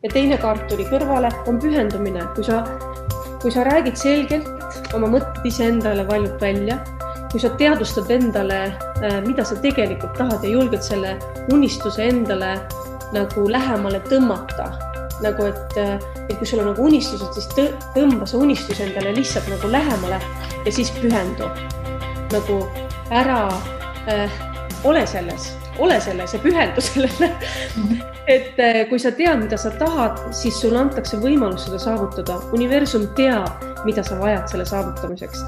ja teine kaart tuli kõrvale, on pühendumine. Kui sa räägid selgelt, oma mõtted iseendale valjud välja, kui sa teadvustad endale, mida sa tegelikult tahad ja julged selle unistuse endale nagu lähemale tõmmata, nagu et kui sul on nagu unistused, siis tõmba see unistus endale lihtsalt nagu lähemale ja siis pühendu. Nagu ära ole selles ja pühendu sellele. Et kui sa tead, mida sa tahad, siis sul antakse võimalus seda saavutada. Universum teab, mida sa vajad selle saavutamiseks.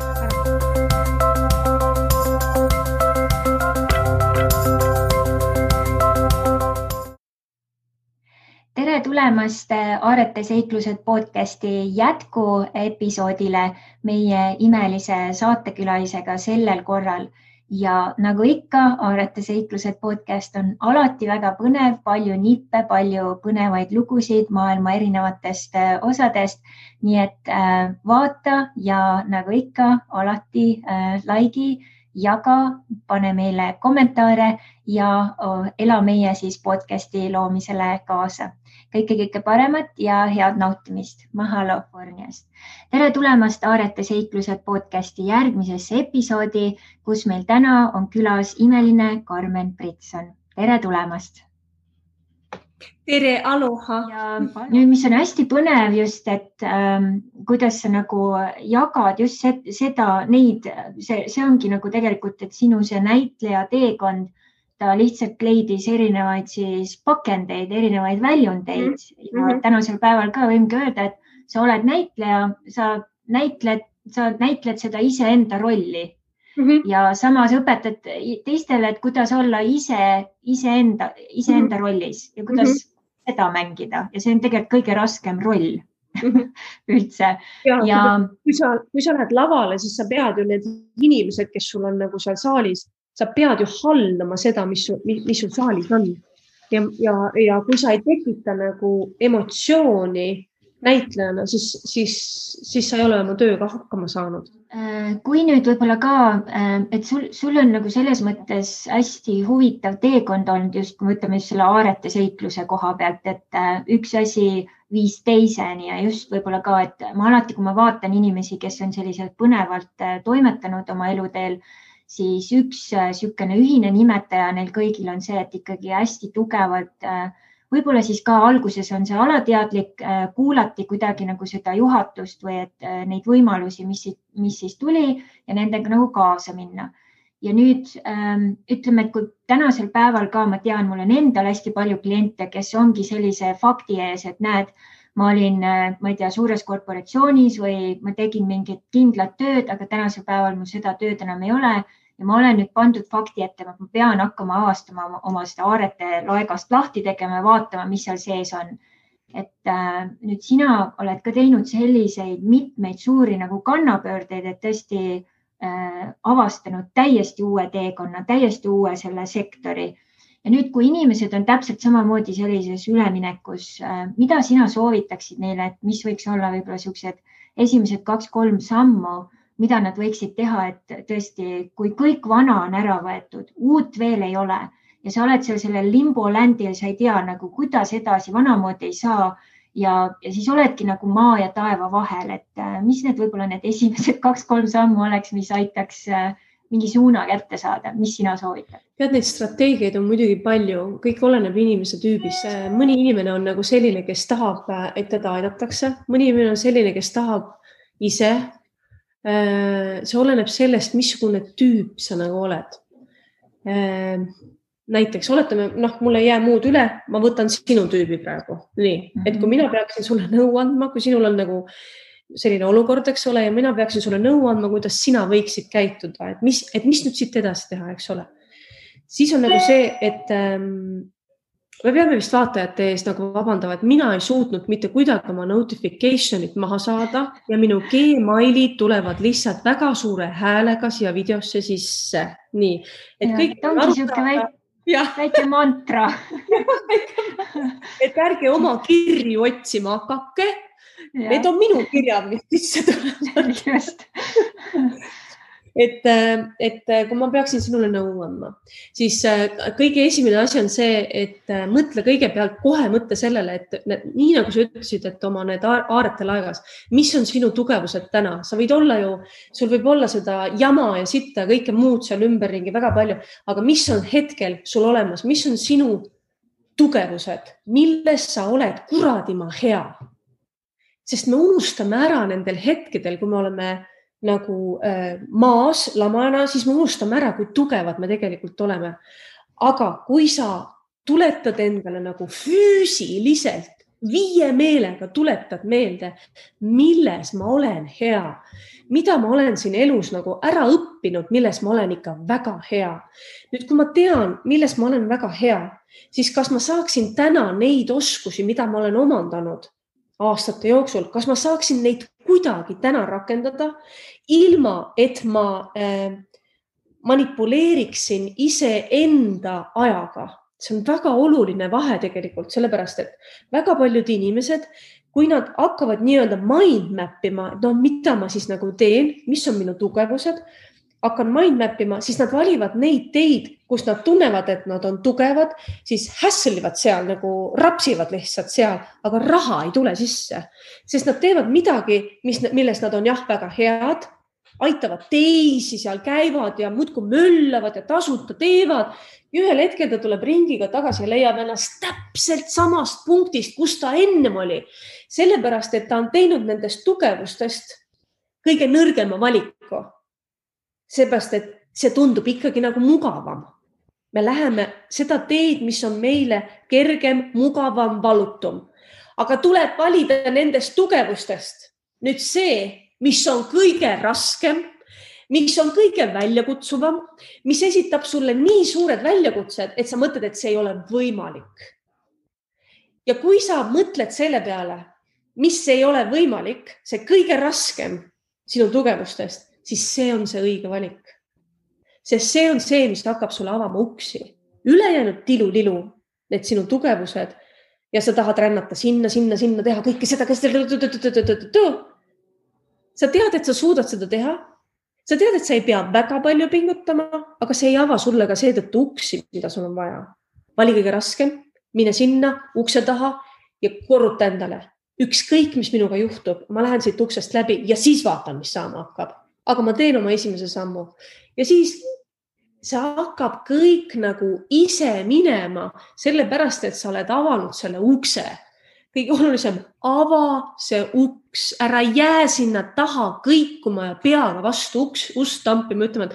Tere tulemast Aarete seiklused podcasti jätkuepisoodile meie imelise saatekülalisega sellel korral. Ja nagu ikka, Aarete seiklused podcast on alati väga põnev, palju nippe, palju põnevaid lugusid maailma erinevatest osadest. Nii et vaata ja nagu ikka, alati laigi, jaga, pane meile kommentaare ja ela meie siis podcasti loomisele kaasa. Kõike paremat ja head nautimist Mahalo Forniast. Tere tulemast Aarete seiklused podcasti järgmisesse episoodi, kus meil täna on külas imeline Karmen Britson. Tere tulemast! Tere, aloha! Ja nüüd, mis on hästi põnev just, et kuidas sa nagu jagad just seda, see ongi nagu tegelikult, et sinu see näitleja teekond, ta lihtsalt leidis erinevaid siis pakendeid, erinevaid väljundeid. Ja tänasel päeval ka võimegi öelda, et sa oled näitleja, sa näitled seda iseenda rolli ja samas õpetad teistele, et kuidas olla iseenda rollis ja kuidas seda mängida. Ja see on tegelikult kõige raskem roll üldse. Ja kui sa lähed lavale, siis sa pead ju need inimesed, kes sul on nagu seal saalis, sa pead ju haldama seda, mis sul saalis on. Ja kui sa ei tekita nagu emotsiooni näitlejana, siis sa ei ole oma tööga hakkama saanud. Kui nüüd võib-olla ka, et sul on nagu selles mõttes hästi huvitav teekond olnud just, kui mõtleme just selle Aarete seikluse koha pealt, et üks asi viis teiseni ja just võib-olla ka, et ma alati, kui ma vaatan inimesi, kes on selliselt põnevalt toimetanud oma eluteel, siis üks sükene ühine nimetaja neil kõigil on see, et ikkagi hästi tugevalt, võib-olla siis ka alguses on see alateadlik, kuulati kuidagi nagu seda juhatust või et neid võimalusi, mis siis tuli ja nendega nagu kaasa minna. Ja nüüd ütleme, et kui tänasel päeval ka ma tean, mul on endal hästi palju kliente, kes ongi sellise fakti ees, et näed, ma olin, ma ei tea, suures korporatsioonis või ma tegin mingit kindlat tööd, aga tänasel päeval mul seda tööd enam ei ole ja ma olen nüüd pandud fakti ette, et ma pean hakkama avastama oma seda Aarete laegast lahti tegema ja vaatama, mis seal sees on. Et nüüd sina oled ka teinud selliseid mitmeid suuri nagu kannapöördeid, et tõesti avastanud täiesti uue teekonna, täiesti uue selle sektori. Ja nüüd, kui inimesed on täpselt samamoodi sellises üleminekus, mida sina soovitaksid neile, et mis võiks olla võib-olla sellised esimesed 2-3 sammu, mida nad võiksid teha, et tõesti, kui kõik vana on ära võetud, uut veel ei ole ja sa oled sellel limboländil, sa ei tea nagu, kuidas edasi, vanamoodi ei saa ja siis oledki nagu maa ja taeva vahel, et mis need võib-olla need esimesed 2-3 sammu oleks, mis aitaks mingi suuna kätte saada, mis sina soovitad? Tead, neid strateegiaid on muidugi palju, kõik oleneb inimese tüübis. Mõni inimene on nagu selline, kes tahab, et teda aidatakse. Mõni inimene on selline, kes tahab ise. See oleneb sellest, missugune tüüp sa nagu oled. Näiteks oletame, mulle ei jää muud üle, ma võtan sinu tüübi praegu. Nii, et kui mina peaksin sulle nõu andma, kui sinul on nagu selline olukord, eks ole, ja mina peaksin sulle nõu andma, kuidas sina võiksid käituda, et mis nüüd siit edasi teha, eks ole. Siis on nagu see, et me peame vist vaatajate ees nagu vabandama, et mina ei suutnud mitte kuidagi oma notificationit maha saada ja minu Gmailid tulevad lihtsalt väga suure häälega siia videosse sisse. Nii, et kõik ongi siuke väike mantra. Et ärge oma kirju otsima hakake. Need on minu kirjad, mis sisse tulevad. et kui ma peaksin sinule nõu andma, siis kõige esimene asi on see, et mõtle kõigepealt kohe mõtle sellele, et nii nagu sa ütlesid, et oma need aarete laegas, mis on sinu tugevused täna, sa võid olla ju, sul võib olla seda jama ja sitta ja kõike muud seal ümberringi väga palju, aga mis on hetkel sul olemas, mis on sinu tugevused, milles sa oled kuradima hea, sest me unustame ära nendel hetkedel, kui me oleme nagu maas lamana, siis me unustame ära, kui tugevad me tegelikult oleme. Aga kui sa tuletad endale nagu füüsiliselt, 5 meelega tuletad meelde, milles ma olen hea, mida ma olen siin elus nagu ära õppinud, milles ma olen ikka väga hea. Nüüd, kui ma tean, milles ma olen väga hea, siis kas ma saaksin täna neid oskusi, mida ma olen omandanud aastate jooksul, kas ma saaksin neid kuidagi täna rakendada, ilma et ma manipuleeriksin iseenda ajaga. See on väga oluline vahe tegelikult, sellepärast, et väga paljud inimesed, kui nad hakkavad nii-öelda mind mappima, mida ma siis nagu teen, mis on minu tugevused, hakkan mind mappima, siis nad valivad neid teid, kus nad tunnevad, et nad on tugevad, siis hässelivad seal, nagu rapsivad lihtsalt seal, aga raha ei tule sisse. Sest nad teevad midagi, milles nad on väga head, aitavad teisi, seal käivad ja muudkui möllavad ja tasuta teevad. Ja ühel hetkel ta tuleb ringiga tagasi ja leiab ennast täpselt samast punktist, kus ta ennem oli. Sellepärast, et ta on teinud nendest tugevustest kõige nõrgema valiku. Seepärast, et see tundub ikkagi nagu mugavam. Me läheme seda teed, mis on meile kergem, mugavam, valutum. Aga tuleb valida nendest tugevustest. Nüüd see, mis on kõige raskem, mis on kõige väljakutsuvam, mis esitab sulle nii suured väljakutsed, et sa mõtled, et see ei ole võimalik. Ja kui sa mõtled selle peale, mis ei ole võimalik, see kõige raskem sinu tugevustest, siis see on see õige valik. Sest see on see, mis hakkab sulle avama uksi. Ülejäänud tilu-lilu, need sinu tugevused ja sa tahad rännata sinna, teha kõike seda, sa tead, et sa suudad seda teha. Sa tead, et sa ei pea väga palju pingutama, aga see ei ava sulle ka seetõttu uksi, mida sul on vaja. Vali kõige raskem, mine sinna, ukse taha ja korruta endale. Ükskõik, mis minuga juhtub, ma lähen siit uksest läbi ja siis vaatan, mis saama hakkab. Aga ma teen oma esimese sammu ja siis see hakkab kõik nagu ise minema, sellepärast, et sa oled avanud selle ukse. Kõige olulisem, ava see uks, ära jää sinna taha kõikuma ja peaga vastu ust tampima, ütlema,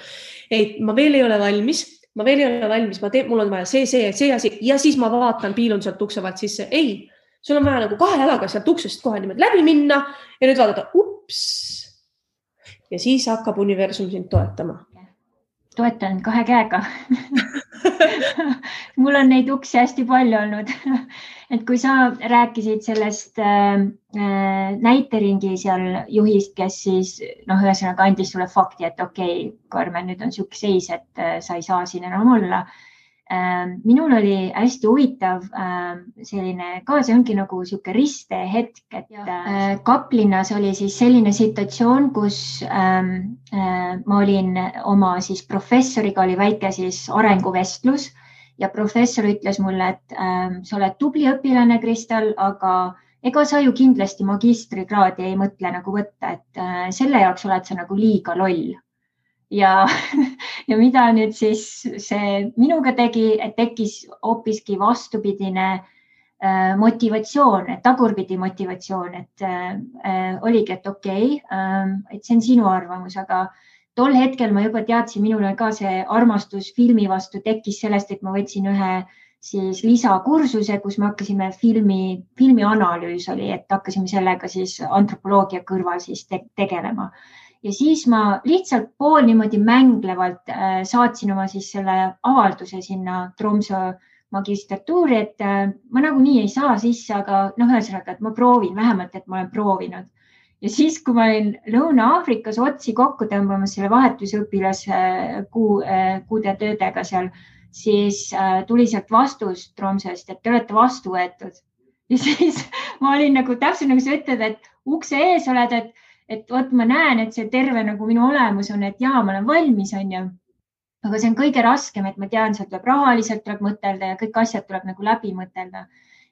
et ma veel ei ole valmis, mul on vaja see asi ja siis ma vaatan, piilun sealt ukse vahelt sisse. Ei, sul on vaja nagu 2 jalaga sealt uksest kohe niimoodi läbi minna ja nüüd vaadata, ups. Ja siis hakkab universum sind toetama. Toetan 2 käega. Mul on neid uksi hästi palju olnud. Et kui sa rääkisid sellest näiteringi seal juhist, kes siis ühesõnaga andis sulle fakti, et okei, Karmen, nüüd on siuke seis, et sa ei saa siin enam olla. Minul oli hästi huvitav selline, ka see ongi nagu siuke ristehetk, et Kaplinnas oli siis selline situatsioon, kus ma olin oma siis professoriga, oli väike siis arenguvestlus ja professor ütles mulle, et sa oled tubli õpilane, Kristal, aga ega sa ju kindlasti magistrikraadi ei mõtle nagu võtta, et selle jaoks oled sa nagu liiga loll. Ja mida nüüd siis see minuga tegi, et tekkis hoopiski vastupidine motivatsioon, et tagurpidi motivatsioon, et oligi, et okei, et see on sinu arvamus, aga tol hetkel ma juba teadsin, minul ka see armastus filmi vastu tekkis sellest, et ma võtsin ühe siis lisakursuse, kus me hakkasime filmi analüüs oli, et hakkasime sellega siis antropoloogia kõrval siis tegelema. Ja siis ma lihtsalt pool niimoodi mänglevalt saatsin oma siis selle avalduse sinna Tromsø magistratuuri, et ma nagunii ei saa sisse, aga ühesõnaga, et ma proovin, vähemalt, et ma olen proovinud. Ja siis, kui ma olin Lõuna-Aafrikas otsi kokku tõmbamas selle vahetusõpilase kuude töödega seal, siis tuli sealt vastus Tromsøst, et te olete vastu võetud. Ja siis ma olin nagu täpselt nagu sa ütled, et ukse ees oled, et vot ma näen, et see terve nagu minu olemus on, et jaa, ma olen valmis, on ju. Aga see on kõige raskem, et ma tean, see tuleb rahaliselt tuleb mõtelda ja kõik asjad tuleb nagu läbi mõtelda.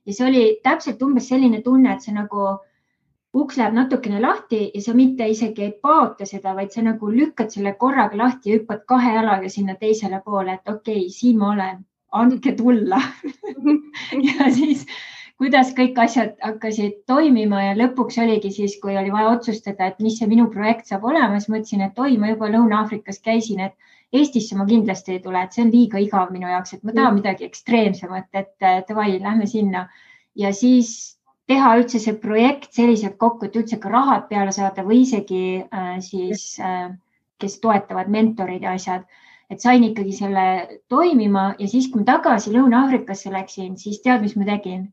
Ja see oli täpselt umbes selline tunne, et see nagu uks läheb natukene lahti ja sa mitte isegi ei paota seda, vaid sa nagu lükkad selle korraga lahti ja hüppad 2 jalaga sinna teisele poole, et okei, siin ma olen, andke tulla. Ja siis kuidas kõik asjad hakkasid toimima ja lõpuks oligi siis, kui oli vaja otsustada, et mis see minu projekt saab olema, siis mõtlesin, et oi, ma juba Lõuna-Aafrikas käisin, et Eestisse ma kindlasti ei tule, et see on liiga igav minu jaoks, et ma tahan midagi ekstreemsemat, et davai, lähme sinna. Ja siis teha üldse see projekt selliselt kokku, et üldse ka rahad peale saada või isegi siis, kes toetavad mentorid ja asjad, et sain ikkagi selle toimima ja siis, kui ma tagasi Lõuna-Aafrikasse läksin, siis tead, mis ma tegin?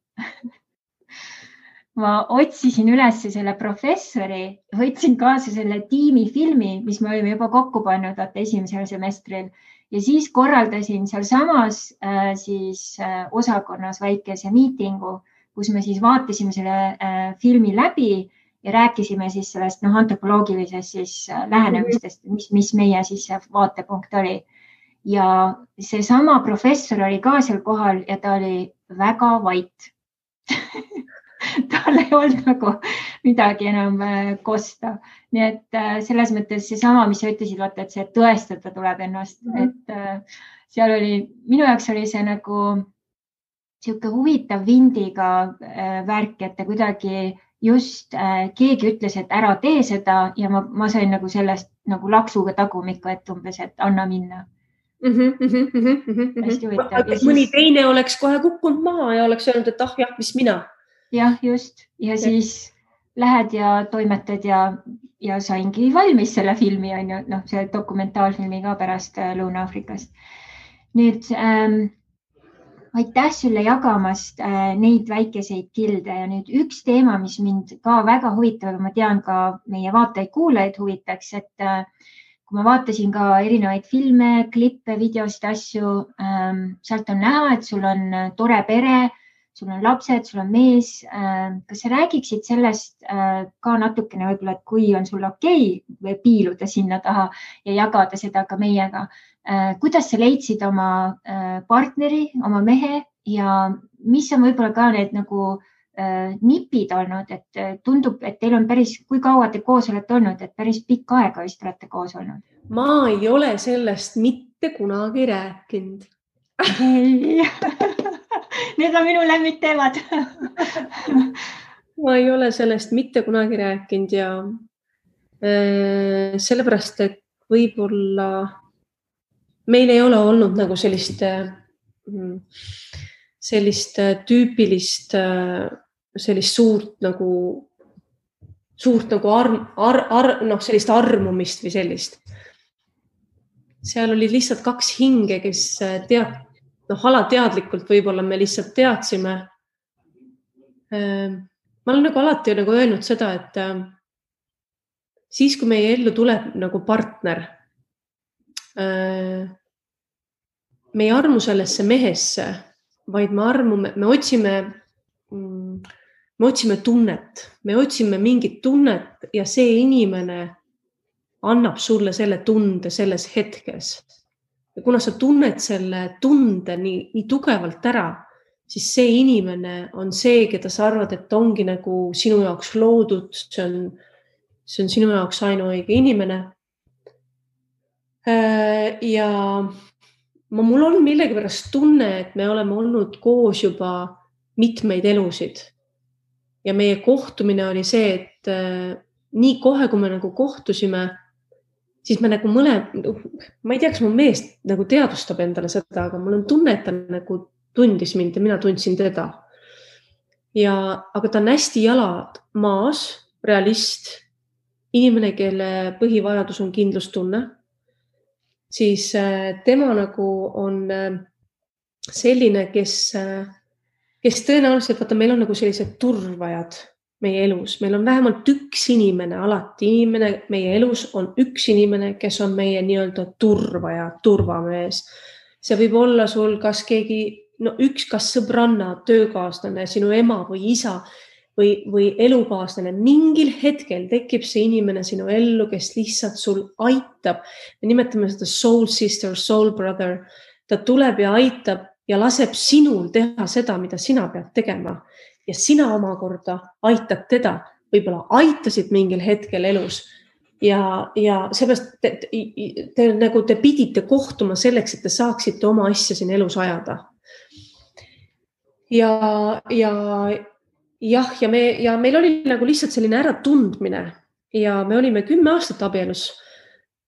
Ma otsisin üles selle professori, võtsin kaasa selle tiimifilmi, mis me olime juba kokku pannud esimesel semestril ja siis korraldasin sealsamas siis osakonnas väikese miitingu, kus me siis vaatasime selle filmi läbi ja rääkisime siis sellest antropoloogilisest siis lähenemistest, mis meie siis vaatepunkt oli. Ja seesama professor oli ka seal kohal ja ta oli väga vait. Tal ei olnud nagu midagi enam kosta. Nii et selles mõttes seesama, mis sa ütlesid, vaata, et see tõestada tuleb ennast. Et seal oli, minu jaoks oli see nagu sihuke huvitav vindiga värk, et kuidagi just keegi ütles, et ära tee seda ja ma sain nagu sellest nagu laksuga tagumikku, et umbes, et anna minna. Hästi huvitav. Mõni teine oleks kohe kukkunud maha ja oleks öelnud, et jah, mis mina. Jah, just. Ja siis lähed ja toimetad ja saingi valmis selle filmi, on ju, see dokumentaalfilmi ka pärast Lõuna-Aafrikast. Nüüd aitäh sulle jagamast neid väikeseid kilde ja nüüd üks teema, mis mind ka väga huvitab, ma tean ka meie vaatajaid-kuulajaid huvitaks, et kui ma vaatasin ka erinevaid filme, klippe, videosid, asju, sealt on näha, et sul on tore pere, sul on lapsed, sul on mees. Kas sa räägiksid sellest ka natukene võib-olla, et kui on sul okei piiluda sinna taha ja jagada seda ka meiega? Kuidas sa leidsid oma partneri, oma mehe ja mis on võib-olla ka need nagu nipid olnud, et tundub, et teil on päris, kui kaua te koos olete olnud, et päris pikka aega vist olete koos olnud? Ma ei ole sellest mitte kunagi rääkinud. Need on minu lemmikteemad. Ma ei ole sellest mitte kunagi rääkinud ja sellepärast, et võib-olla meil ei ole olnud nagu sellist tüüpilist, sellist suurt nagu sellist armumist või sellist. Seal oli lihtsalt 2 hinge, kes alateadlikult võib-olla me lihtsalt teadsime. Ma olen nagu alati nagu öelnud seda, et siis, kui meie ellu tuleb nagu partner, me ei armu sellesse mehesse, vaid me otsime tunnet, me otsime mingit tunnet ja see inimene annab sulle selle tunde selles hetkes. Ja kuna sa tunned selle tunde nii tugevalt ära, siis see inimene on see, keda sa arvad, et ongi nagu sinu jaoks loodud, see on sinu jaoks ainuõige inimene. Ja mul on millegipärast tunne, et me oleme olnud koos juba mitmeid elusid. Ja meie kohtumine oli see, et nii kohe, kui me nagu kohtusime, siis me nagu ma ei tea, kas mu mees nagu teadvustab endale seda, aga mul on tunne, et ta nagu tundis mind ja mina tundsin teda. Aga ta on hästi jalad maas, realist, inimene, kelle põhivajadus on kindlustunne, siis tema nagu on selline, kes tõenäoliselt, vaata, meil on nagu sellised turvajad meie elus. Meil on vähemalt üks inimene, alati inimene meie elus on üks inimene, kes on meie nii-öelda turvaja, turvamees. See võib olla sul kas keegi, kas sõbranna, töökaaslane, sinu ema või isa, või elukaaslane, mingil hetkel tekib see inimene sinu ellu, kes lihtsalt sul aitab. Me nimetame seda soul sister, soul brother. Ta tuleb ja aitab ja laseb sinul teha seda, mida sina pead tegema. Ja sina omakorda aitad teda. Võib-olla aitasid mingil hetkel elus. Ja seepärast te pidite kohtuma selleks, et te saaksite oma asja siin elus ajada. Ja meil oli nagu lihtsalt selline äratundmine ja me olime 10 aastat abielus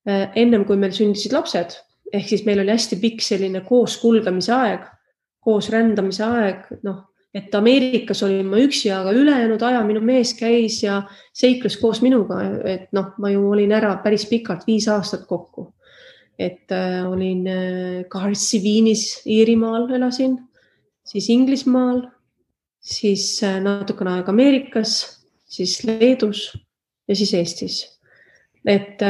ennem, kui meil sündisid lapsed. Ehk siis meil oli hästi pikk selline koos kulgemise aeg, koos rändamise aeg, et Ameerikas olin ma üksi, aga ülejäänud aja minu mees käis ja seiklus koos minuga, et ma ju olin ära päris pikalt 5 aastat kokku. Et olin Carcivinis Iirimaal elasin, siis Inglismaal, siis natukene aeg Ameerikas, siis Leedus ja siis Eestis. Et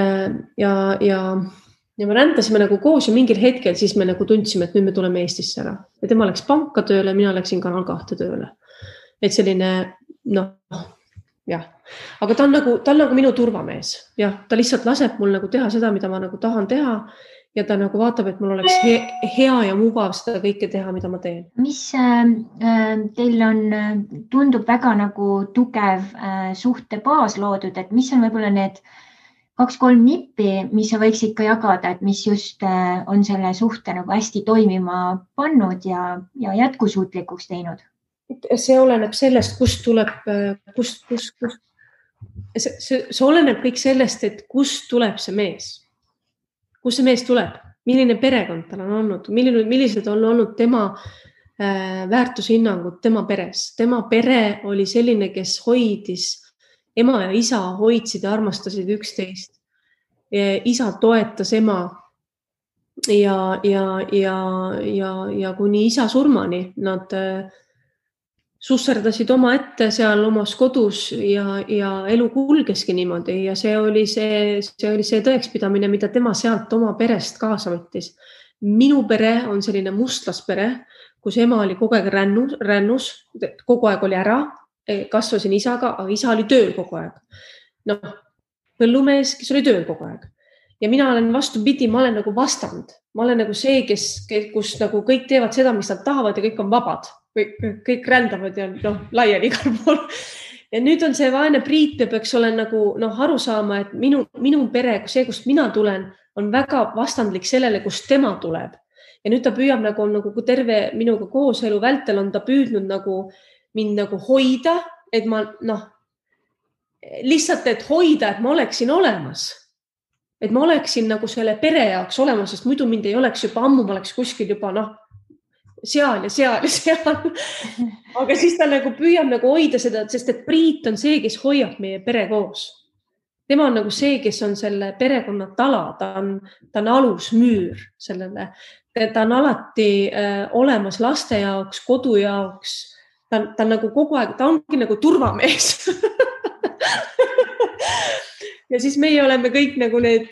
ja me rändasime nagu koos ja mingil hetkel siis me nagu tundsime, et nüüd me tuleme Eestisse ära. Ja tema läks panka tööle, mina läksin Kanal 2 tööle. Et selline, jah. Aga ta on nagu minu turvamees. Jah, ta lihtsalt laseb mul nagu teha seda, mida ma nagu tahan teha. Ja ta nagu vaatab, et mul oleks hea ja mugav seda kõike teha, mida ma teen. Mis teil tundub väga nagu tugev suhte baas loodud, et mis on võib-olla need 2-3 nippi, mis sa võiksid ka jagada, et mis just on selle suhte nagu hästi toimima pannud ja jätkusuutlikuks teinud? See oleneb sellest, kust tuleb, see oleneb kõik sellest, et kust tuleb see mees. Kust see mees tuleb? Milline perekond tal on olnud? Millised on olnud tema väärtushinnangud tema peres? Tema pere oli selline, kes hoidis, ema ja isa hoidsid ja armastasid üksteist. Isa toetas ema ja kuni isa surmani nad susserdasid oma ette seal omas kodus ja elu kulgeski niimoodi ja see oli see tõekspidamine, mida tema sealt oma perest kaasa võttis. Minu pere on selline mustlaspere, kus ema oli kogu aeg rännus, kogu aeg oli ära, kasvasin isaga, aga isa oli tööl kogu aeg. Põllumees, kes oli tööl kogu aeg. Ja mina olen vastupidi, ma olen nagu vastand. Ma olen nagu see, kus nagu kõik teevad seda, mis nad tahavad ja kõik on vabad. Kõik rändavad ja laiali igal pool. Ja nüüd on see vaene Priit ja peaks olen nagu aru saama, et minu pere, see, kust mina tulen, on väga vastandlik sellele, kust tema tuleb. Ja nüüd ta püüab nagu terve minuga kooselu vältel on ta püüdnud nagu mind nagu hoida, et ma lihtsalt, et hoida, et ma oleksin olemas. Et ma oleksin nagu selle pere jaoks olemas, sest muidu mind ei oleks juba ammu, ma oleks kuskil juba seal ja seal ja seal. Aga siis ta nagu püüab nagu hoida seda, sest et Priit on see, kes hoiab meie pere koos. Tema on nagu see, kes on selle perekonna tala, ta on alusmüür sellele. Ta on alati olemas laste jaoks, kodu jaoks. Ta on nagu kogu aeg, ta ongi nagu turvamees. Ja siis meie oleme kõik nagu need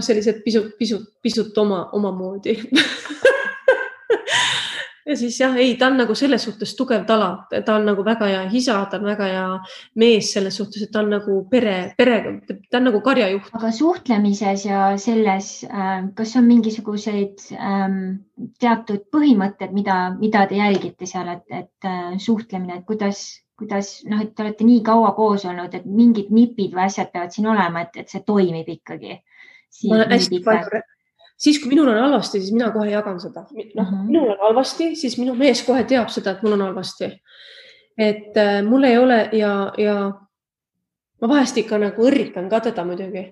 sellised pisut oma moodi. Ja siis ta on nagu selles suhtes tugev tala. Ta on nagu väga hea isa, ta on väga hea mees selles suhtes, et ta on nagu pere, ta on nagu karjajuht. Aga suhtlemises ja selles, kas on mingisuguseid teatud põhimõtted, mida te jälgite seal, et suhtlemine, et kuidas, et te olete nii kaua koos olnud, et mingid nipid või asjad peavad siin olema, et see toimib ikkagi. Siis, kui minul on halvasti, siis mina kohe jagan seda. Minul on halvasti, siis minu mees kohe teab seda, et mul on halvasti. Et mul ei ole ja ma vahest ikka nagu õrritan ka teda muidugi.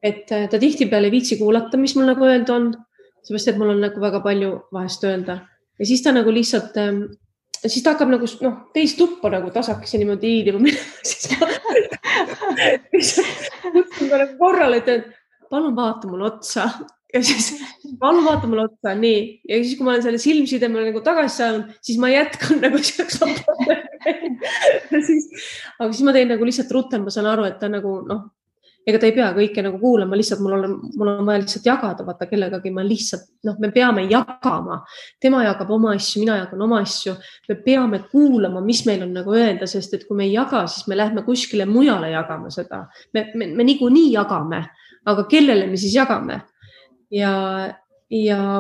Et ta tihtipeale ei viitsi kuulata, mis mul nagu öelda on. Seepärast, et mul on nagu väga palju vahest öelda. Ja siis ta nagu lihtsalt... Siis ta hakkab nagu teist tuppa nagu tasakesi niimoodi hiilima. Siis ma kutsun ta nagu korrale, et palun vaata mulle otsa. Ja siis palun vaata mulle otsa, nii. Ja siis, kui ma olen selle silmsidemele nagu tagasi saanud, siis ma jätkan nagu selleks aga siis ma teen nagu lihtsalt rutem, ma saan aru, et ta nagu, ega ta ei pea kõike nagu kuulama, lihtsalt mul on vaja lihtsalt jagada, vaata kellegagi ma lihtsalt, me peame jagama. Tema jagab oma asju, mina jagan oma asju. Me peame kuulama, mis meil on nagu öelda, sest et kui me ei jaga, siis me lähme kuskile mujale jagama seda. Me niikuinii jagame, aga kellele me siis jagame? Ja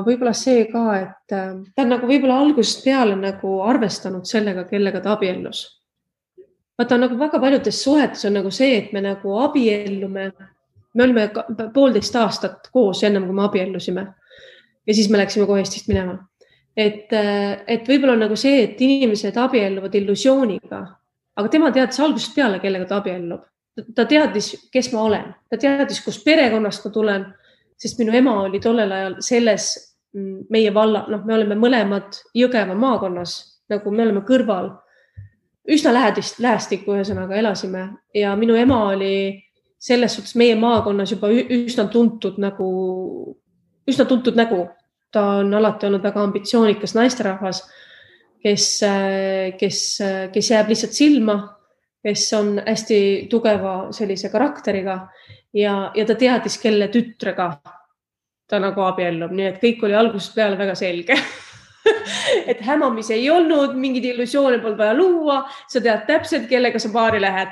võib-olla see ka, et ta on nagu võib-olla algusest peale nagu arvestanud sellega, kellega ta abiellus. Vaata on nagu väga paljudes suhetes on nagu see, et me nagu abiellume. Me olime 1,5 aastat koos ennem, kui me abiellusime. Ja siis me läksime kohe Eestist minema. Et võib-olla on nagu see, et inimesed abielluvad illusiooniga, aga tema teadis algusest peale, kellega ta abiellub. Ta teadis, kes ma olen. Ta teadis, kus perekonnast ma tulen, sest minu ema oli tollel ajal selles meie valla, me oleme mõlemad Jõgeva maakonnas, nagu me oleme kõrval. Üsna lähestikku ühesõnaga elasime ja minu ema oli selles suhtes meie maakonnas juba üsna tuntud nägu. Ta on alati olnud väga ambitsioonikas naisterahvas, kes jääb lihtsalt silma, kes on hästi tugeva sellise karakteriga ja ta teadis, kelle tütrega ta nagu abiellub, nii et kõik oli algusest peale väga selge. Et hämamis ei olnud, mingid illusioone polnud vaja luua, sa tead täpselt, kellega sa baari lähed.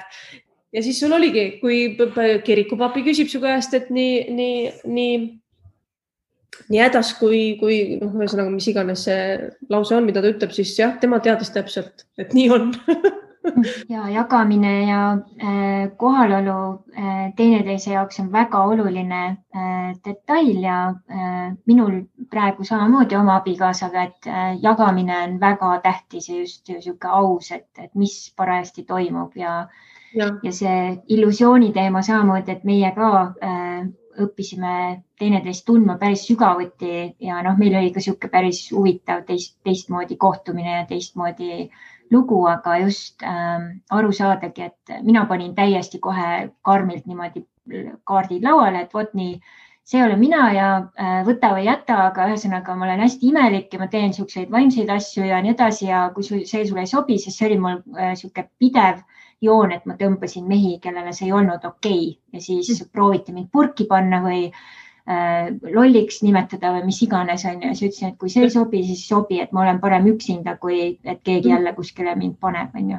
Ja siis sul oligi, kui kirikupapi küsib su käest, et nii hädas kui ühesõnaga, mis iganes see lause on, mida ta ütleb, siis jah, tema teadis täpselt, et nii on. Ja jagamine ja kohalolu teineteise jaoks on väga oluline detail ja minul praegu samamoodi oma abikaasaga, et jagamine on väga tähtis ja just siuke aus, et mis parajasti toimub ja see illusiooni teema samamoodi, et meie ka õppisime teineteist tundma päris sügavuti ja meil oli ka siuke päris huvitav teistmoodi kohtumine ja teistmoodi lugu, aga just aru saadagi, et mina panin täiesti kohe karmilt niimoodi kaardid lauale, et vot nii, see olen mina ja võta või jäta, aga ühesõnaga ma olen hästi imelik ja ma teen siukseid vaimseid asju ja nii edasi ja kui see sulle ei sobi, siis see oli mul siuke pidev joon, et ma tõmbasin mehi, kellele see ei olnud okei ja siis prooviti mind purki panna või lolliks nimetada või mis iganes on ja siis ütlesin, et kui see ei sobi, siis sobi, et ma olen parem üksinda, kui et keegi jälle kuskile mind paneb, on ju.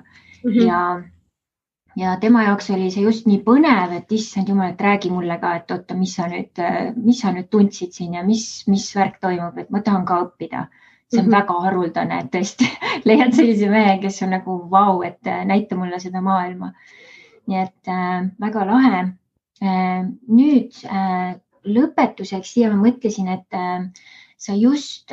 Ja tema jaoks oli see just nii põnev, et issand jumal, et räägi mulle ka, et oota, mis sa nüüd tundsid siin ja mis värk toimub, et ma tahan ka õppida. See on väga haruldane, et tõesti leiad sellise mehe, kes on nagu vau, et näita mulle seda maailma. Nii et väga lahe. Nüüd lõpetuseks siia ma mõtlesin, et sa just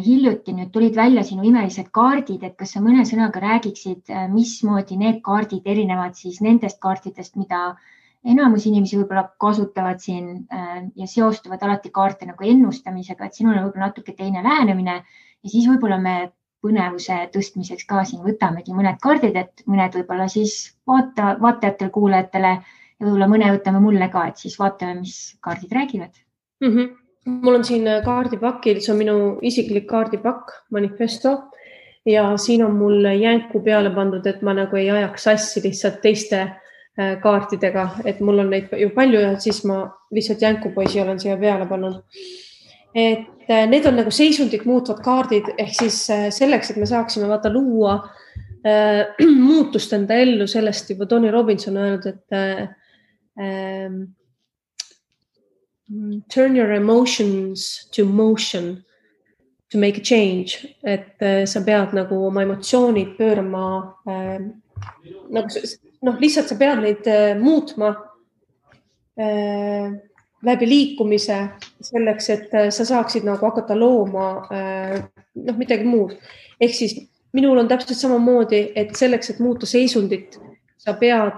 hiljuti nüüd tulid välja sinu imelised kaardid, et kas sa mõne sõnaga räägiksid, mismoodi need kaardid erinevad siis nendest kaartidest, mida enamus inimesi võib-olla kasutavad siin ja seostavad alati kaarte nagu ennustamisega, et sinul on võib-olla natuke teine lähenemine ja siis võib-olla me põnevuse tõstmiseks ka siin võtamegi mõned kaardid, et mõned võib-olla siis vaatajatele, kuulajatele ja võib-olla mõne võtame mulle ka, et siis vaatame, mis kaardid räägivad. Mul on siin kaardipakil, see on minu isiklik kaardipakk, manifesto ja siin on mul jänku peale pandud, et ma nagu ei ajaks sassi lihtsalt teiste kaartidega, et mul on neid ju palju ja siis ma lihtsalt jänkupoisi olen siia peale pannud. Et need on nagu seisundit muutvad kaardid, ehk siis selleks, et me saaksime luua muutust enda ellu, sellest juba Tony Robbins on öelnud, et turn your emotions to motion to make a change, et sa pead nagu oma emotsioonid pöörama lihtsalt sa pead neid muutma läbi liikumise selleks, et sa saaksid nagu hakata looma midagi muud. Ehk siis minul on täpselt samamoodi, et selleks, et muuta seisundit, sa pead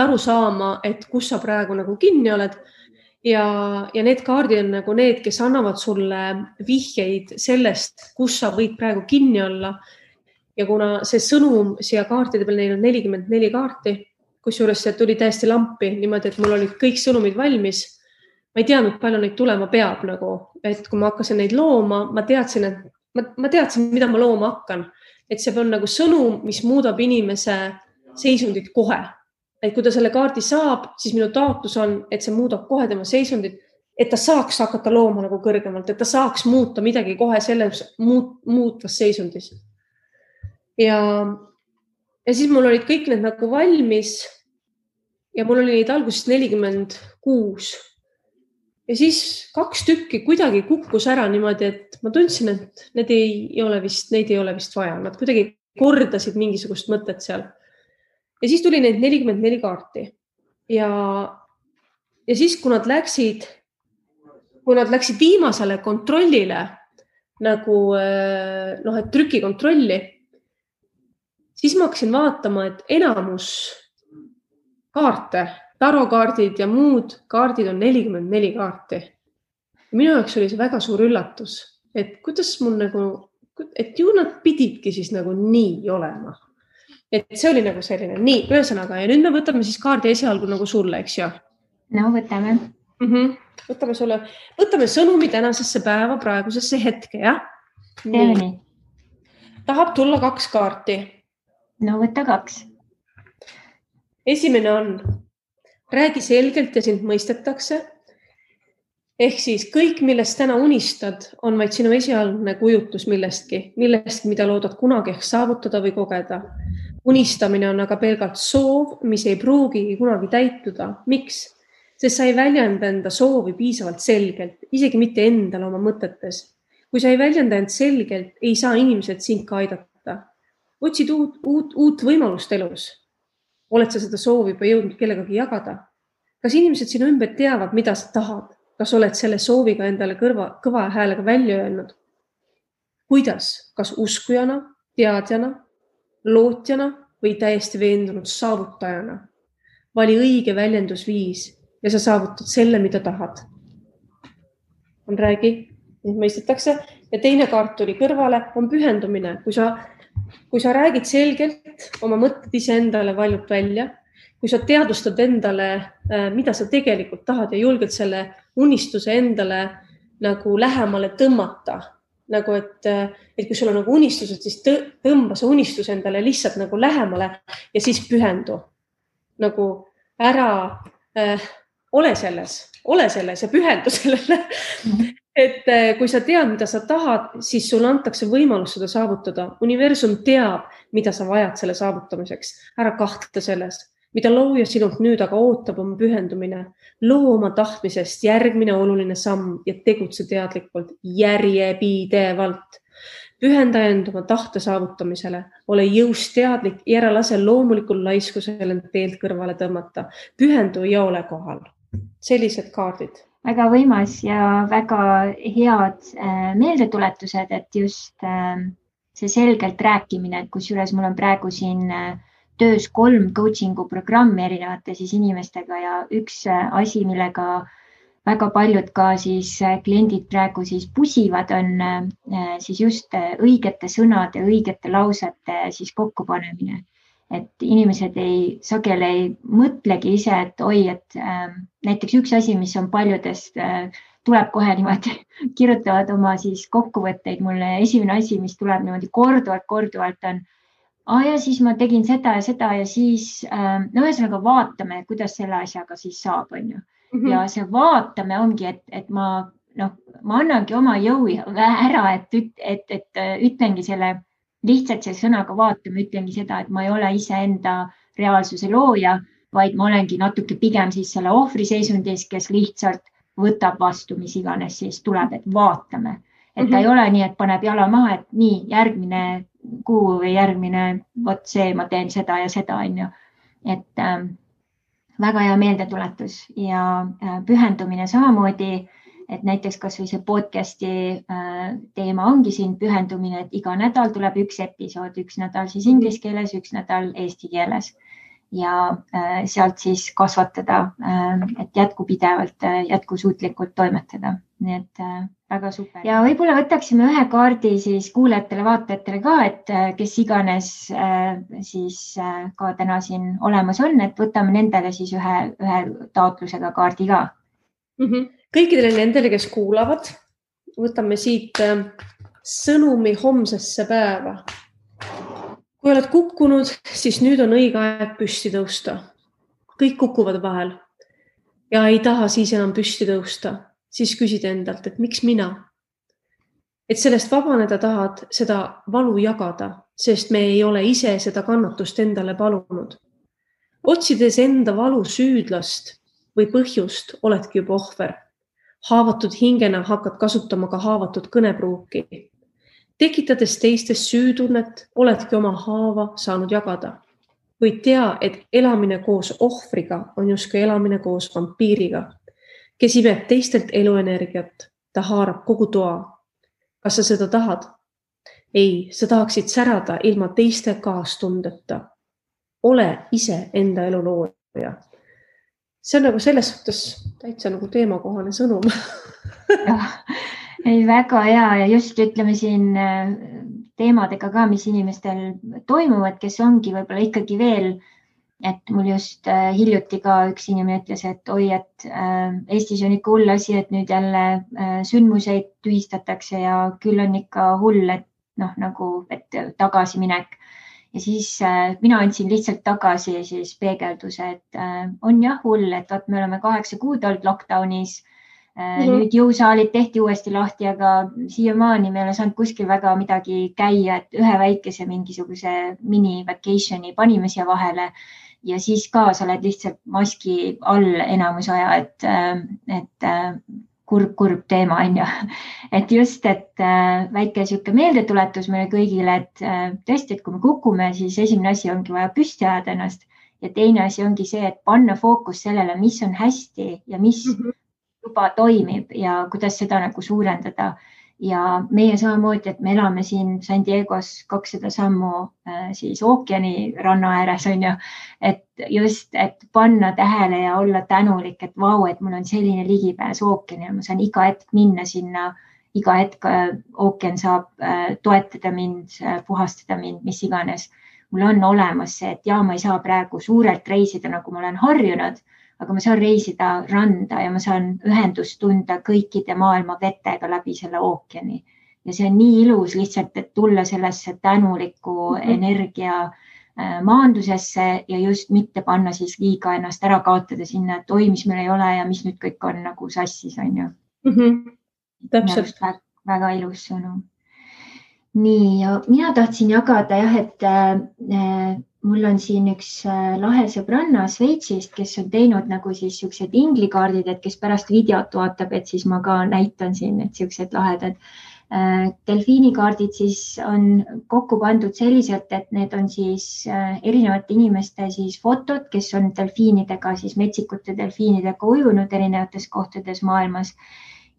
aru saama, et kus sa praegu nagu kinni oled ja need kaardid on nagu need, kes annavad sulle vihjeid sellest, kus sa võid praegu kinni olla. Ja kuna see sõnum siia kaartide peal, neil on 44 kaarti, kusjuures see tuli täiesti lampi niimoodi, et mul olid kõik sõnumid valmis. Ma ei teadnud, palju neid tulema peab, et kui ma hakkasin neid looma, ma teadsin, mida ma looma hakkan. Et see on nagu sõnum, mis muudab inimese seisundit kohe. et kui ta selle kaardi saab, siis minu taotlus on, et see muudab kohe tema seisundit, et ta saaks hakata looma nagu kõrgemalt, et ta saaks muuta midagi kohe selles muutvas seisundis. Ja siis mul olid kõik need nagu valmis ja mul oli neid alguses 46. Ja siis 2 tükki kuidagi kukkus ära niimoodi, et ma tundsin, et neid ei ole vist vaja. Nad kuidagi kordasid mingisugust mõtet seal. Ja siis tuli neid 44 kaarti. Ja siis, kui nad läksid viimasele kontrollile, nagu et trükikontrolli, siis ma hakkasin vaatama, et enamus kaarte, tarokaardid ja muud kaardid on 44 kaarti. Ja minu jaoks oli see väga suur üllatus, et kuidas mul et ju nad pididki siis nagu nii olema. Et see oli nagu selline, nii, ühesõnaga, ja nüüd me võtame siis kaardi esialgu nagu sulle, eks ju? No, võtame. Võtame sõnumi tänasesse päeva, praegusesse hetke, jah? Teeme nii. Tahab tulla 2 kaarti. No, võtta 2. Esimene on, räägi selgelt ja sind mõistetakse. Ehk siis kõik, millest täna unistad, on vaid sinu esialgne kujutus millestki, mida loodad kunagi ehk saavutada või kogeda. Unistamine on aga pelgalt soov, mis ei pruugi kunagi täituda. Miks? Sest sa ei väljenda enda soovi piisavalt selgelt, isegi mitte endale oma mõtetes. Kui sa ei väljenda end selgelt, ei saa inimesed sind ka aidata. Otsid uut võimalust elus. Oled sa seda soovi juba jõudnud kellegagi jagada? Kas inimesed sinu ümber teavad, mida sa tahad? Kas oled selle sooviga endale kõva häälega välja öelnud? Kuidas? Kas uskujana, teadjana, lootjana või täiesti veendunud saavutajana? Vali õige väljendusviis ja sa saavutad selle, mida tahad. On räägi, mõistetakse. Ja teine kaart tuli kõrvale, on pühendumine. Kui sa räägid selgelt, oma mõtted ise endale valjult välja, kui sa teadvustad endale, mida sa tegelikult tahad ja julged selle unistuse endale nagu lähemale tõmmata. Nagu, et kui sul on nagu unistused, siis tõmba see unistus endale lihtsalt nagu lähemale ja siis pühendu. Nagu ära, ole selles ja pühendu sellele. Et kui sa tead, mida sa tahad, siis sul antakse võimalus seda saavutada. Universum teab, mida sa vajad selle saavutamiseks. Ära kahtle selles. Mida looja sinult nüüd aga ootab oma pühendumine. Loo oma tahtmisest järgmine oluline samm ja tegutse teadlikult, järjepidevalt. Pühenda end oma tahte saavutamisele. Ole jõust teadlik ja ära lase loomulikul laiskusel end teelt kõrvale tõmmata. Pühendu ja ole kohal. Sellised kaardid. Väga võimas ja väga head meeldetuletused, et just see selgelt rääkimine, et kusjuures mul on praegu siin töös 3 coachingu programmi erinevate siis inimestega ja üks asi, millega väga paljud ka siis kliendid praegu siis pusivad, on siis just õigete sõnade, õigete lausete siis kokkupanemine. Et inimesed sageli ei mõtlegi ise, et et näiteks üks asi, mis on paljudest, tuleb kohe niimoodi, kirjutavad oma siis kokkuvõtteid mulle. Esimene asi, mis tuleb niimoodi korduvalt on, ja siis ma tegin seda ja siis, ühesõnaga vaatame, kuidas selle asjaga siis saab, on ju. Ja see vaatame ongi, et ma annangi oma jõu ära, et ütlengi selle lihtsalt see sõnaga vaatame, ütlengi seda, et ma ei ole iseenda reaalsuse looja, vaid ma olengi natuke pigem siis selle ohvri seisundis, kes lihtsalt võtab vastu, mis iganes siis tuleb, et vaatame. Et ta ei ole nii, et paneb jala maha, et nii, järgmine kuu või järgmine, vot see, ma teen seda ja seda, on ju. Et väga hea meeldetuletus ja pühendumine samamoodi, et näiteks kas või see podcasti teema ongi siin pühendumine, et iga nädal tuleb üks episood, üks nädal siis inglise keeles, üks nädal eesti keeles ja sealt siis kasvatada, et jätkupidevalt, jätkusuutlikult toimetada. Nii et väga super. Ja võib-olla võtaksime ühe kaardi siis kuulajatele, vaatajatele ka, et kes iganes siis ka täna siin olemas on, et võtame nendele siis ühe taotlusega kaardi ka. Kõikidele nendele, kes kuulavad, võtame siit sõnumi homsesse päeva. Kui oled kukkunud, siis nüüd on õige aeg püsti tõusta. kõik kukuvad vahel ja ei taha siis enam püsti tõusta, siis küsid endalt, et miks mina? Et sellest vabaneda tahad seda valu jagada, sest me ei ole ise seda kannatust endale palunud. Otsides enda valu süüdlast või põhjust, oledki juba ohver. Haavatud hingena hakkad kasutama ka haavatud kõnepruuki. Tekitades teistes süütunnet, oledki oma haava saanud jagada. Kuid tea, et elamine koos ohvriga on justkui elamine koos vampiiriga, kes imeb teistelt eluenergiat. Ta haarab kogu toa. Kas sa seda tahad? Ei, sa tahaksid särada ilma teiste kaastundeta. Ole ise enda elu looja. See on nagu selles suhtes täitsa nagu teemakohane sõnum. Ei, väga hea ja just ütleme siin teemadega ka, mis inimestel toimuvad, kes ongi võib-olla ikkagi veel, et mul just hiljuti ka üks inimene ütles, et oi, et Eestis on ikka hull asi, et nüüd jälle sündmuseid tühistatakse ja küll on ikka hull, et nagu, et tagasiminek. Ja siis mina andsin lihtsalt tagasi siis peegelduse, et on jah hull, et me oleme 8 kuud olnud lockdownis. Nüüd jõusaalid tehti uuesti lahti, aga siiamaani me ei ole saanud kuskil väga midagi käia, et ühe väikese mingisuguse mini-vacationi panime siia vahele ja siis ka sa oled lihtsalt maski all enamus aja, et kurb teema on ju. Et just, et väike siuke meeldetuletus meile kõigile, et tõesti, et kui me kukume, siis esimene asi ongi vaja püsti ajada ennast ja teine asi ongi see, et panna fookus sellele, mis on hästi ja mis juba toimib ja kuidas seda nagu suurendada. Ja meie samamoodi, et me elame siin San Diegos 200 sammu siis ookeani ranna ääres on ju, et just, et panna tähele ja olla tänulik, et vau, et mul on selline ligipääs ookeani ja ma saan iga hetk minna sinna, iga hetk ookean saab toetada mind, puhastada mind, mis iganes. Mul on olemas see, et ma ei saa praegu suurelt reisida, nagu ma olen harjunud, aga ma saan reisida randa ja ma saan ühendust tunda kõikide maailma vetega läbi selle ookeani. Ja see on nii ilus lihtsalt, et tulla sellesse tänuliku energia maandusesse ja just mitte panna siis liiga ennast ära kaotada sinna, et oi, mis meil ei ole ja mis nüüd kõik on nagu sassis, on ju. Täpselt. Väga ilus sõnum. Nii, ja mina tahtsin jagada jah, et mul on siin üks lahe sõbranna Sveitsist, kes on teinud nagu siis siuksed inglikaardid, et kes pärast videot vaatab, et siis ma ka näitan siin, et siuksed lahedad. Delfiinikaardid siis on kokku pandud selliselt, et need on siis erinevate inimeste siis fotod, kes on delfiinidega, siis metsikute delfiinidega ujunud erinevates kohtades maailmas.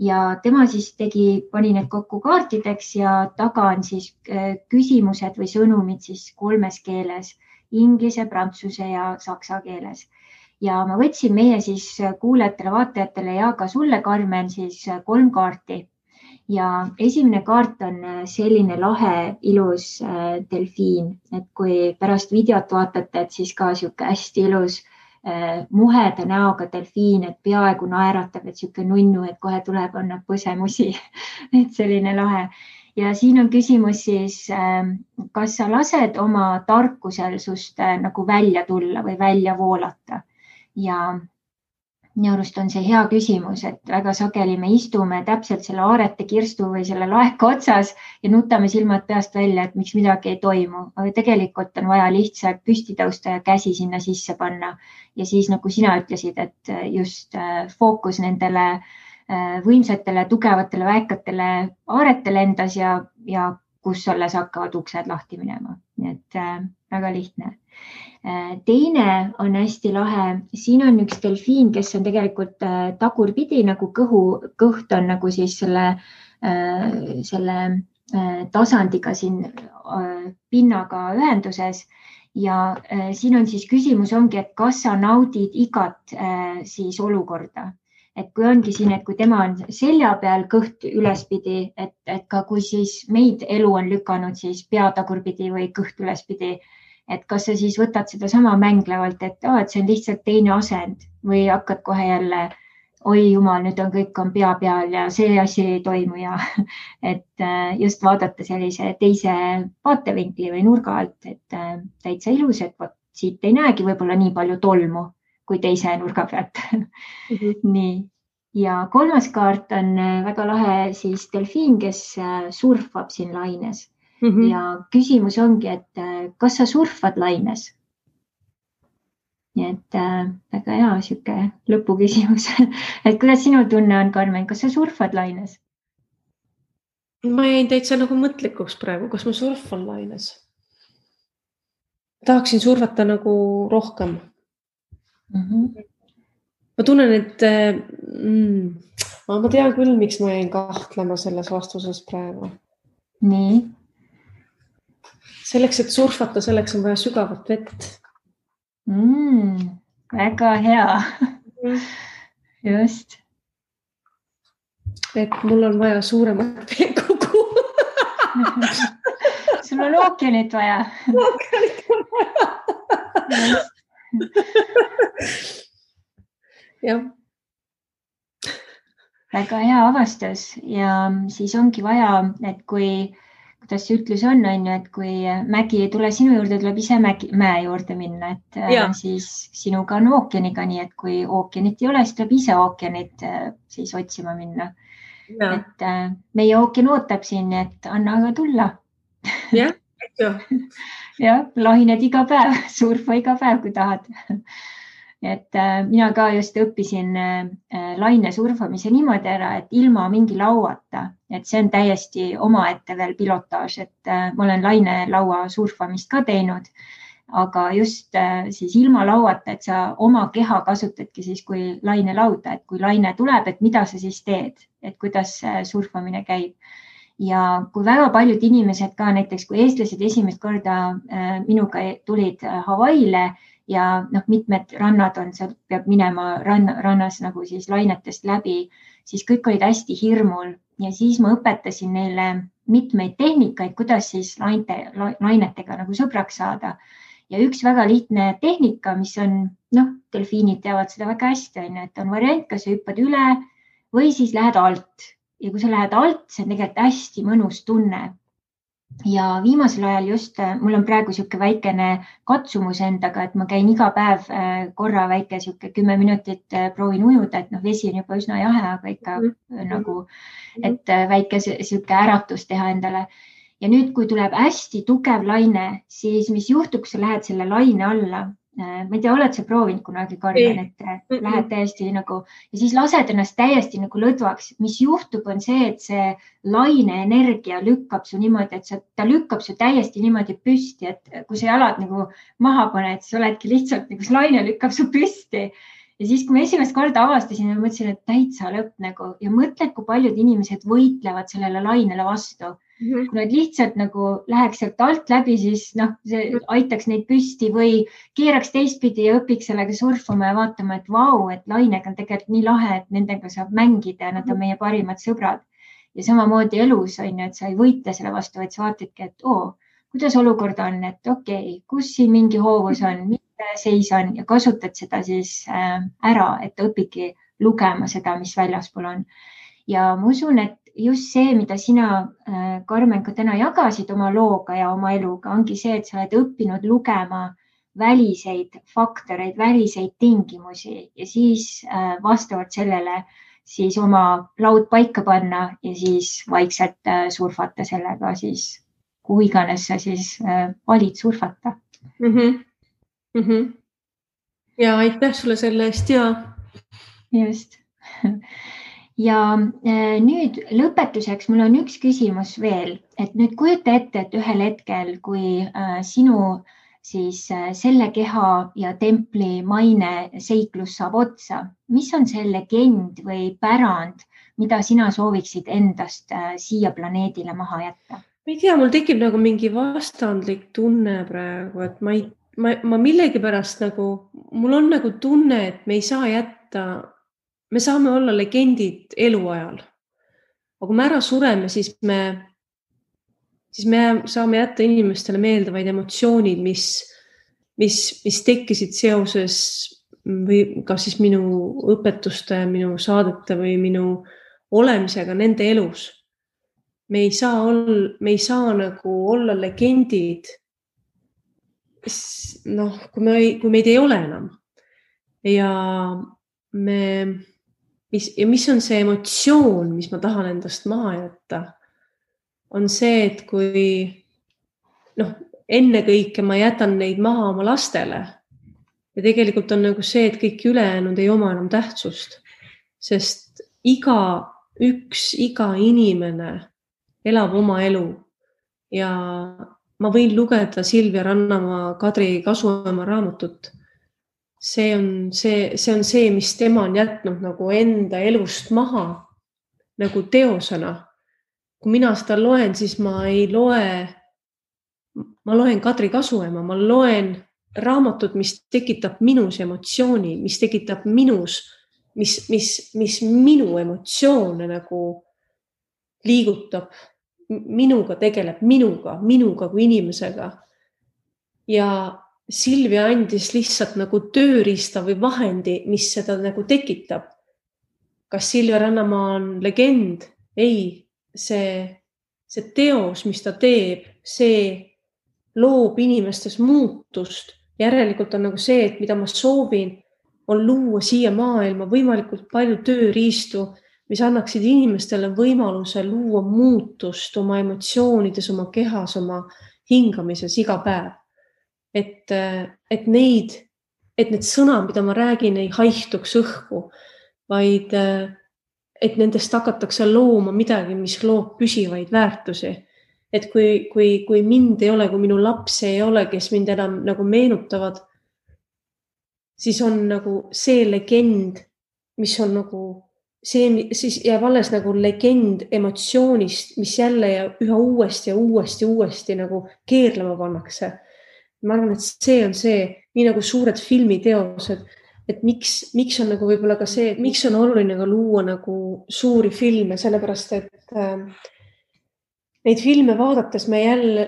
Ja tema siis pani need kokku kaartideks ja taga on siis küsimused või sõnumid siis 3 keeles, inglise, prantsuse ja saksa keeles. Ja ma võtsin meie siis kuulajatele, vaatajatele ja ka sulle, Karmen, siis 3 kaarti. Ja esimene kaart on selline lahe, ilus delfiin, et kui pärast videot vaatate, et siis ka siuke hästi ilus muheda näoga delfiin, et peaaegu naeratab, et siuke nunnu, et kohe tuleb, annab põsemusi. Et selline lahe. Ja siin on küsimus siis, kas sa lased oma tarkusel sust nagu välja tulla või välja voolata? Ja minu arust on see hea küsimus, et väga sageli me istume täpselt selle aarete kirstu või selle laeka otsas ja nutame silmad peast välja, et miks midagi ei toimu. Aga tegelikult on vaja lihtsalt püsti tõusta ja käsi sinna sisse panna. Ja siis nagu sina ütlesid, et just fookus nendele võimsatele, tugevatele, väikatele aaretele endas ja kus alles hakkavad uksed lahti minema. Nii et väga lihtne. Teine on hästi lahe. Siin on üks delfiin, kes on tegelikult tagurpidi, nagu kõht on nagu siis selle tasandiga siin pinnaga ühenduses. Ja siin on siis küsimus ongi, et kas sa naudid igat siis olukorda. Et kui ongi siin, et kui tema on selja peal kõht ülespidi, et ka kui siis meid elu on lükanud siis pea tagurpidi või kõht ülespidi, et kas sa siis võtad seda sama mänglevalt, et see on lihtsalt teine asend või hakkad kohe jälle, oi jumal, nüüd on kõik on pea peal ja see asi ei toimu ja et just vaadata sellise teise vaatevinkli või nurga alt, et täitsa ilus, et siit ei näegi võib-olla nii palju tolmu, kui teise nurga pealt. Nii. Ja kolmas kaart on väga lahe siis delfiin, kes surfab siin laines. Ja küsimus ongi, et kas sa surfad laines? Nii et väga hea siuke lõpuküsimus. Et kuidas sinu tunne on, Karmen, kas sa surfad laines? Ma jäin täitsa nagu mõtlikuks praegu, kas ma surfan laines. Tahaksin surfata nagu rohkem. Ma tunnen, et ma tean küll, miks ma jäin kahtlema selles vastuses praegu. Nii. Selleks, et surfata, selleks on vaja sügavat vett. Väga hea. Just. Et mul on vaja suuremat veekogu. Sul on ookeanit vaja. Ookeanit on vaja. Jah. Väga hea avastus ja siis ongi vaja, et kuidas see ütlus on, et kui mägi ei tule sinu juurde, tuleb ise mäe juurde minna, et siis sinuga on ookeaniga, nii et kui ookeanit ei ole, siis tuleb ise ookeanit siis otsima minna. Ja. Et meie ookean ootab siin, et anna aga tulla. Jah, jah, lahined iga päev, surfa iga päev, kui tahad. Et mina ka just õppisin laine surfamise niimoodi ära, et ilma mingi lauata, et see on täiesti omaette veel pilotaaž, et ma olen laine laua surfamist ka teinud, aga just siis ilma lauata, et sa oma keha kasutadki siis kui laine lauda, et kui laine tuleb, et mida sa siis teed, et kuidas surfamine käib. Ja kui väga paljud inimesed ka näiteks, kui eestlased esimest korda minuga tulid Hawaiile ja mitmed rannad on, seal peab minema rannas nagu siis lainetest läbi, siis kõik olid hästi hirmul ja siis ma õpetasin neile mitmeid tehnikaid, kuidas siis lainetega nagu sõbraks saada. Ja üks väga lihtne tehnika, mis on, delfiinid teavad seda väga hästi, et on variant, kas sa hüppad üle või siis lähed alt. Ja kui sa lähed alt, see on tegelikult hästi mõnus tunne. Ja viimasel ajal just, mul on praegu siuke väikene katsumus endaga, et ma käin iga päev korra väike siuke 10 minutit proovin ujuda, et vesi on juba üsna jahe, aga ikka nagu, et väike siuke äratus teha endale. Ja nüüd, kui tuleb hästi tugev laine, siis mis juhtub, kui sa lähed selle laine alla? Ma ei tea, oled sa proovinud kunagi, Karmen, et lähed täiesti nagu ja siis lased ennast täiesti nagu lõdvaks. Mis juhtub on see, et see laine energia lükkab su niimoodi, et ta lükkab su täiesti niimoodi püsti, et kui sa jalad nagu maha paned, siis oledki lihtsalt nagu see laine lükkab su püsti. Ja siis, kui ma esimest korda avastasin, ma mõtlesin, et täitsa lõpp nagu ja mõtled, kui paljud inimesed võitlevad sellele lainele vastu. Kui nad lihtsalt nagu läheks sealt alt läbi, siis see aitaks neid püsti või keeraks teistpidi ja õpiks sellega surfama ja vaatama, et vau, et lainega on tegelikult nii lahe, et nendega saab mängida ja nad on meie parimad sõbrad. Ja samamoodi elus on, et sa ei võitle selle vastu, vaid sa vaatadki, et kuidas olukord on, et okei, kus siin mingi hoovus on, mis seis on ja kasutad seda siis ära, et õpidki lugema seda, mis väljaspool on. Ja ma usun, et just see, mida sina, Karmen, ka täna jagasid oma looga ja oma eluga, ongi see, et sa oled õppinud lugema väliseid faktoreid, väliseid tingimusi ja siis vastavalt sellele siis oma laud paika panna ja siis vaikselt surfata sellega siis, kuhu iganes sa siis valid surfata. Ja aitäh sulle selle eest ja. Just. Ja nüüd lõpetuseks mul on üks küsimus veel, et nüüd kujuta ette, et ühel hetkel, kui sinu siis selle keha ja templi maine seiklus saab otsa, mis on see legend või pärand, mida sina sooviksid endast siia planeedile maha jätta? Ma ei tea, mul tekib nagu mingi vastandlik tunne praegu, et ma millegipärast nagu, mul on nagu tunne, et me ei saa jätta. Me saame olla legendid eluajal. Aga kui me ära sureme, siis me saame jätta inimestele meeldivaid emotsioonid, mis tekkisid seoses või kas siis minu õpetuste, minu saadete või minu olemisega nende elus. Me ei saa nagu olla legendid, kui meid ei ole enam. ja mis on see emotsioon, mis ma tahan endast maha jätta, on see, et kui ennekõike ma jätan neid maha oma lastele ja tegelikult on nagu see, et kõik ülejäänud ei oma enam tähtsust, sest iga inimene elab oma elu ja ma võin lugeda Silvia Rannamaa, Kadri Kasuema raamatut. See on see, mis tema on jätnud nagu enda elust maha nagu teosena. Kui mina seda loen, siis ma loen Kadri Kasuema, ma loen raamatut, mis tekitab minus emotsiooni, mis tekitab minus, mis minu emotsioone nagu liigutab, minuga tegeleb, minuga kui inimesega. Ja Silvia andis lihtsalt nagu tööriista või vahendi, mis seda nagu tekitab. Kas Silvia Rannamaa on legend? Ei, see teos, mis ta teeb, see loob inimestes muutust. Järelikult on nagu see, et mida ma soovin, on luua siia maailma võimalikult palju tööriistu, mis annaksid inimestele võimaluse luua muutust oma emotsioonides, oma kehas, oma hingamises iga päev. Et need sõnad, mida ma räägin, ei haihtuks õhku, vaid et nendest hakatakse looma midagi, mis loob püsivaid väärtusi. Et kui mind ei ole, kui minu laps ei ole, kes mind enam nagu meenutavad, siis on nagu see legend, mis on nagu see, siis jääb alles nagu legend emotsioonist, mis jälle ja üha uuesti nagu keerlema pannakse. Ma arvan, et see on see, nii nagu suured filmiteosed, et miks on nagu võib-olla ka see, et miks on oluline ka luua nagu suuri filme, sellepärast, et neid filme vaadates me jälle,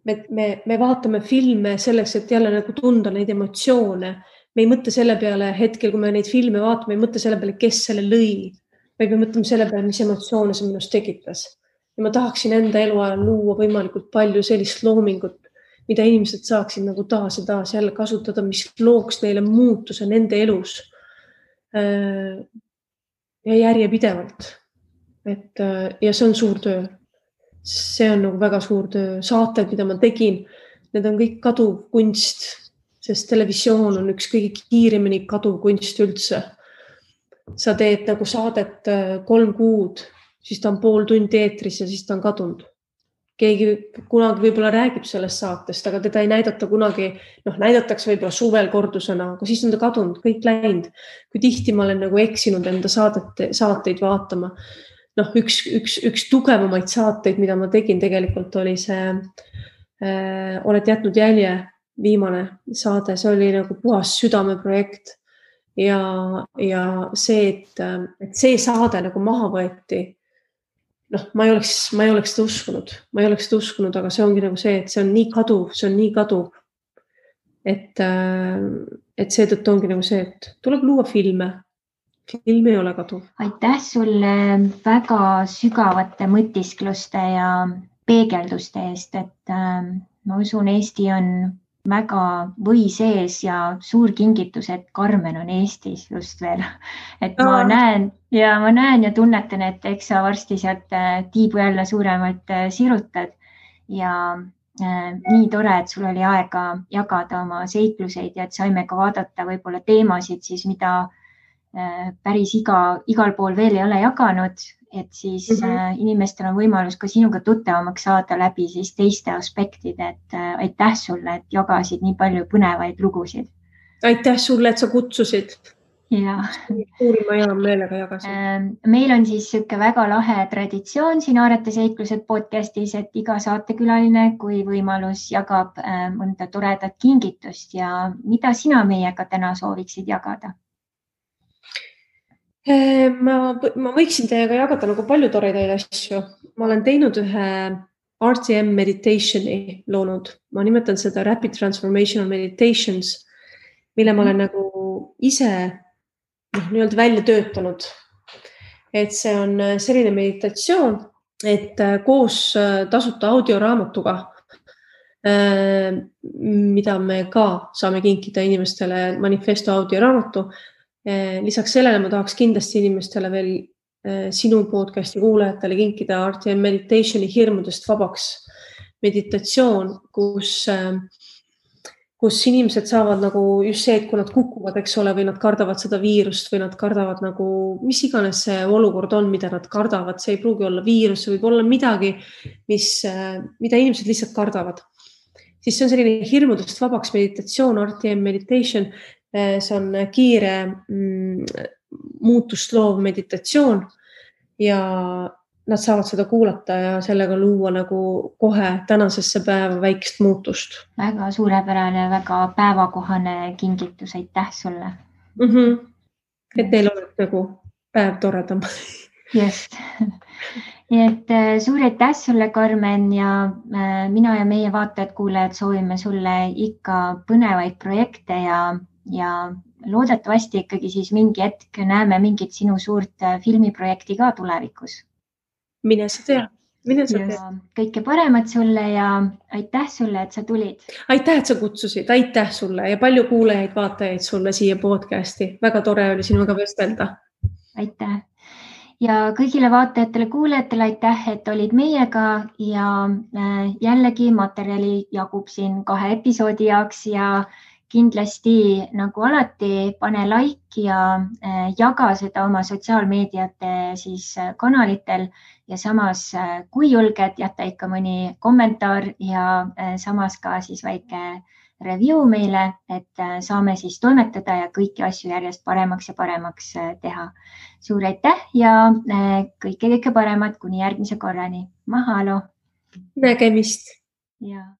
me vaatame filme selleks, et jälle nagu tunda neid emotsioone. Me ei mõtle selle peale hetkel, kui me neid filme vaatame, ei mõtle selle peale, kes selle lõi. Me peame mõtlema selle peale, mis emotsioone see minust tekitas. Ja ma tahaksin enda eluajal luua võimalikult palju sellist loomingut, mida inimesed saaksid nagu taas ja taas jälle kasutada, mis looks neile muutuse nende elus ja järjepidevalt. Ja see on suur töö. See on nagu väga suur töö. Saated, mida ma tegin, need on kõik kaduv kunst, sest televisioon on üks kõige kiiremini kaduv kunst üldse. Sa teed nagu saadet 3 kuud, siis ta on pool tundi eetris ja siis ta on kadunud. Keegi kunagi võib-olla räägib sellest saatest, aga teda ei näidata kunagi, näidatakse võib-olla suvel kordusena, aga siis on ta kadunud, kõik läinud. Kui tihti ma olen nagu eksinud enda saateid vaatama. Üks tugevamaid saateid, mida ma tegin tegelikult oli see Oled jätnud jälje, viimane saade, see oli nagu puhas südameprojekt. Ja see, et see saade nagu maha võeti, ma ei oleks seda uskunud, aga see ongi nagu see, et see on nii kaduv, et seetõttu ongi nagu see, et tuleb luua filme. Film ei ole kaduv. Aitäh sulle väga sügavate mõtiskluste ja peegelduste eest, et ma usun, Eesti on väga või sees ja suur kingitus, et Karmen on Eestis just veel. Et ma näen ja tunnetan, et eks sa varsti sealt tiibu jälle suuremalt sirutad ja nii tore, et sul oli aega jagada oma seikluseid ja et saime ka vaadata võib-olla teemasid, siis mida päris igal pool veel ei ole jaganud, et siis inimestel on võimalus ka sinuga tuttavamaks saada läbi siis teiste aspektide, et aitäh sulle, et jagasid nii palju põnevaid lugusid. Aitäh sulle, et sa kutsusid. Ja. Suurima hea meelega jagasin. Meil on siis siuke väga lahe traditsioon siin Aarete seiklused podcastis, et iga saatekülaline, kui võimalus, jagab mõnda toredat kingitust ja mida sina meiega täna sooviksid jagada? Ma võiksin teiega jagada nagu palju toredaid asju. Ma olen teinud ühe RTM meditationi loonud. Ma nimetan seda Rapid Transformational Meditations, mille ma olen nagu ise nii-öelda välja töötanud. Et see on selline meditatsioon, et koos tasuta audioraamatuga mida me ka saame kinkida inimestele manifesto audioraamatu. Lisaks sellele ma tahaks kindlasti inimestele veel sinu podcasti kuulajatele kinkida RTM Meditationi hirmudest vabaks meditatsioon, kus inimesed saavad nagu just see, et kui nad kukuvad, eks ole, või nad kardavad seda viirust või nad kardavad nagu, mis iganes see olukord on, mida nad kardavad, see ei pruugi olla viirus, see võib olla midagi, mida inimesed lihtsalt kardavad. Siis see on selline hirmudest vabaks meditatsioon, RTM Meditation. See on kiire muutust loov meditatsioon ja nad saavad seda kuulata ja sellega luua nagu kohe tänasesse päeva väikest muutust. Väga suurepärane, väga päevakohane kingitus, aitäh sulle. Et neil oleks nagu päev toredam. Just. Nii et suur aitäh sulle, Karmen, ja mina ja meie vaatajad-kuulajad soovime sulle ikka põnevaid projekte ja loodetavasti ikkagi siis mingi hetk näeme mingit sinu suurt filmiprojekti ka tulevikus. Mine sa tea. Kõike paremat sulle ja aitäh sulle, et sa tulid. Aitäh, et sa kutsusid. Aitäh sulle ja palju kuulajaid, vaatajaid sulle siia podcasti. Väga tore oli sinuga vestelda. Aitäh. Ja kõigile vaatajatele, kuulajatele aitäh, et olid meiega ja jällegi materjali jagub siin 2 episoodi jaoks ja kindlasti nagu alati pane like ja jaga seda oma sotsiaalmeediate siis kanalitel ja samas kui julged jätta ikka mõni kommentaar ja samas ka siis väike review meile, et saame siis toimetada ja kõiki asju järjest paremaks ja paremaks teha. Suur aitäh ja kõike paremat kuni järgmise korrani. Mahalo! Nägemist! Ja.